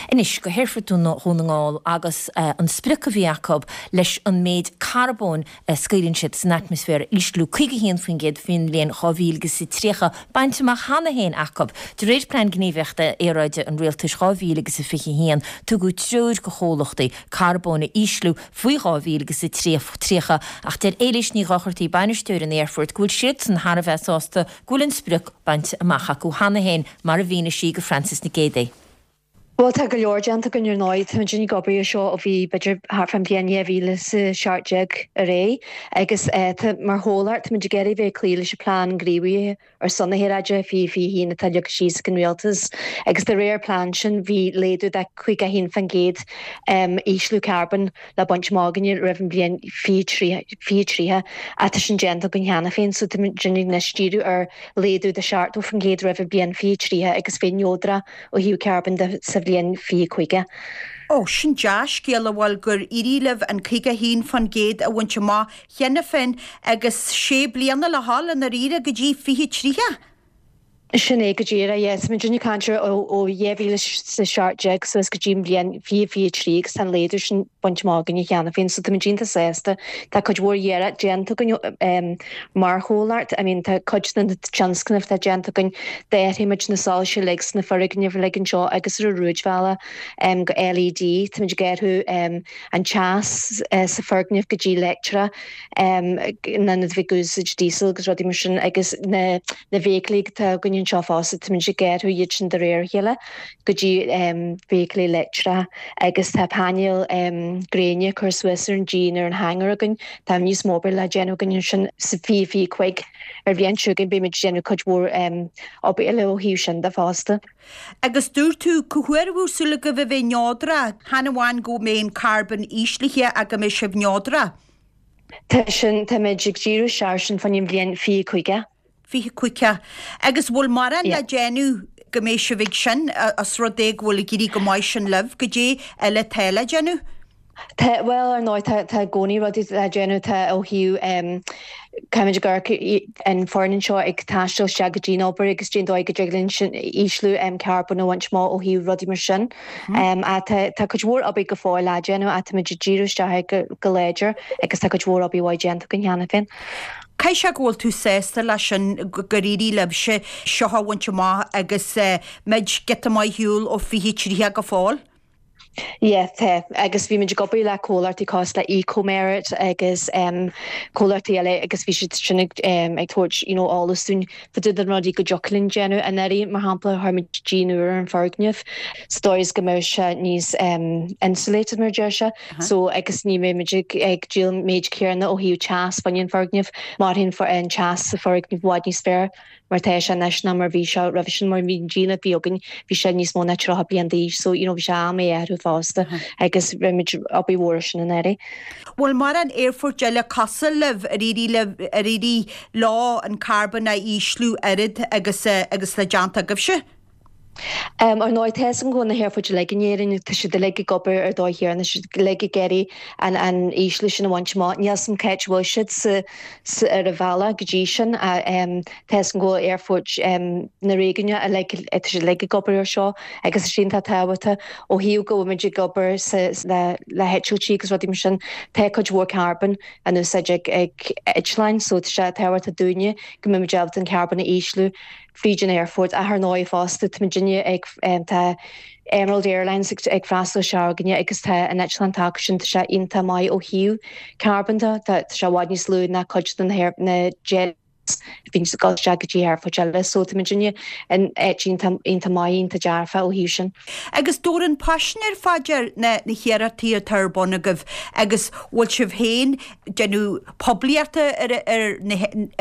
Anois go hAerfort Dhún na nGall agus an sprioc a bhí acu leis an méid carbóin a scaoileann siad san atmaisféar a ísliú 51% faoin mbliain 2030 bainte amach cheana féin acu. De réir Plean Gníomhaíochta Aeráide an Rialtais 2021, tugadh treoir do chomhlachtaí carbón a ísliú faoi 2030 ach deir Éilís Ní Dhochartaigh, bainisteoir an aerfoirt, go bhfuil siadsan thar a bheith sásta go bhfuil an sprioc bainte amach acu cheana féin, mar a mhínigh sí do Frances Nic Géadaigh. Bhuel, tá go leor déanta againn ar ndóigh. Tá muid ag obair ar seo ó bhí b'fhéidir thart fán bhliain 2017 ar aghaidh agus tá, mar chomhlacht, tá muid ag iarraidh bheith ag cloí leis an plean gníomhaithe ar son na haeráide 2021 atá leagtha síos ag an Rialtas agus de réir an plean sin bhí laghdú de 51% ísliú carbóin le baint amach againne roimh an bhliain 2030 ach tá sin déanta againn cheana féin so tá muid anois ag díriú ar laghdú de 70% roimh an bhliain 2030 agus bheith neodrach ó thaobh carbóin de sa bhliain 2050. Ó, sin dea-scéala, bhuel, gur éirigh libh an 51% a bhaint amach cheana féin agus sé bliana le dhul i ndáiríre go dtí 2030. Sin é go díreach, yeah. Tá muid ag caint ar ó 2017 suas go dtí an bhliain 2023 agus tá an laghdú sin bainte amach againne cheana féin so tá muid iontach sásta. Tá cuid mhór iarracht déanta againn mar chomhlacht. I mean tá cuid de na tionscnaimh atá déanta againn, d'athraigh muid na soilse uilig sna foirgnimh uilig anseo agus ar an rúidbhealach go LED. Tá muid ag athrú an teas sa foirgneamh go dtí leictreach in ionad a bheith ag úsáid diesel agus rudaí mar sin agus na na feithiclí atá againn anseo fosta táimid ag athrú iad sin de réir a chéile go dtí feithiclí leictreacha agus tá painéil gréine curtha suas ar an díon ar an hangar againn. Tá níos mó obair le déanamh againn ansin sa 2025 ar bhliain seo chugainn beimid ag déanamh cuid mhór obair eile ó thaobh sin de fosta. Agus dúirt tú, cá huair a bhfuil súil agaibh a bheith neodrach, chan amháin go mbeidh an carbón íslithe ach go mbeidh sibh neodrach? Tá sin, táimid ag díriú isteach air sin fán bhliain 2050. 2050. Agus bhfuil mórán le déanamh go mbeidh sibh ag sin, os rud é go bhfuil ag éirí go maith sin libh, goidé eile atá le déanamh? Tá, bhuel, ar ndóigh, tá, tá i gcónaí rudaí le déanamh, tá ó thaobh, caithfimid ag amharc an foireann anseo ag taisteal isteach go dtí an obair agus cén dóigh go dtig linn sin ísliú carbóin a bhaint amach ó thaobh rudaí mar sin. Ach tá, tá cuid mhór obair go fóill le déanamh ach táimid ag díriú isteach air go, go láidir agus tá cuid mhór obair mhaith déanta againn cheana féin. Caithfidh sé go bhfuil tú sásta leis sin, gur éirigh libhse seo a bhaint amach agus muid giota maith ar shiúl ó 2030 go fóill. Yeah, tá. Agus bhí muid ag obair le comhlachtaí cosúil le Ecomerit agus comhlachtaí eile agus bhí siad sin ag ag tabhairt you know eolas dúinn fá dtaobh de na rudaí go dtiocfadh linn déanamh. Anuraidh, mar shampla, chuir muid díon úr ar an foirgneamh sa dóigh is go mbeadh sé níos insulated mar a deir sé. So agus ní mbeidh muid ag ag díol an méid céanna ó thaobh teas fá choinne an foirgneamh. Mairfidh an teas sa foirgneamh i bhfad níos fearr. mar atá sé anois ná mar bhí sé roimhe sin mar bhí an díon a bhí againn bhí sé níos mó ná 30 bliain d'aois so you know bhí sé am é a athrú fosta agus rinne muid obair mhór ar sin anuraidh. Bhfuil mórán aerfoirt eile cosúil libh ar éirigh libh ar éirigh leo an carbón a ísliú oiread agus agus atá déanta agaibhse? Ar ndóigh, tá 'fhios agam go bhfuil na haerfoirt uilig in Éirinn, tá siad uilig ag obair ar dóigh chéanna, tá siad uilig ag iarraidh an an ísliú sin a bhaint amach. Níl 'fhios agam cá háit a bhfuil siad sa sa ar an bhealach go dtí sin ach tá 'fhios agam go bhfuil aerfoirt na réigiúine uilig, tá siad uilig ag obair ar seo agus is iontach tábhachtach ó thaobh go bhfuil muid ag obair sa le le heitiltí agus rudaí mar sin, tá cuid mhór carbóin in úsáid ag ag eitleáin so tá sé tábhachtach dúinne go mbeidh muid ábalta an carbón a ísliú. fríd an aerfort. Ach ar ndóigh fosta tá muidinne ag, tá Emerald Airlines ag freastal isteach chugainne agus tá an eitleán atá acu sin, tá sé iontach maith ó thaobh carbón de, tá sé i bhfad níos lú ná cuid de na jets a bhíonn ag dul isteach go dtí aerfoirt eile. So tá muidinne in áit iontach, iontach maith, iontach dearfach ó thaobh sin. Agus tabhair an paisinéir fá dear na hiarrachtaí atá ar bun agaibh agus bhfuil sibh féin déanamh poiblíochta ar ar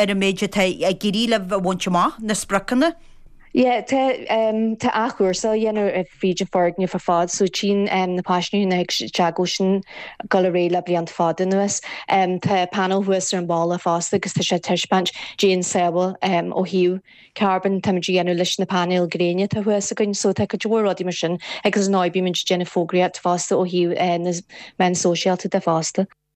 an méid atá ag éirí libh a bhaint amach, na spriocanna? Yeah, tá tá athchúrsáil á dhéanamh fríd an foirgneamh ar fad, so tchíonn na paisinéirí nuair a thig isteach go bhfuil sin ag dul ar aghaidh le blianta fada anuas. Tá panel thuas ar an bhalla fosta agus tá sé ag taispeáint cén sábháil ó thaobh carbón táimid a dhéanamh leis na painéil gréine atá thuas againn, so tá cuid mhór rudaí mar sin agus ar ndóigh bímid ag déanamh fógraíocht fosta ó thaobh na meán sóisialta de fosta.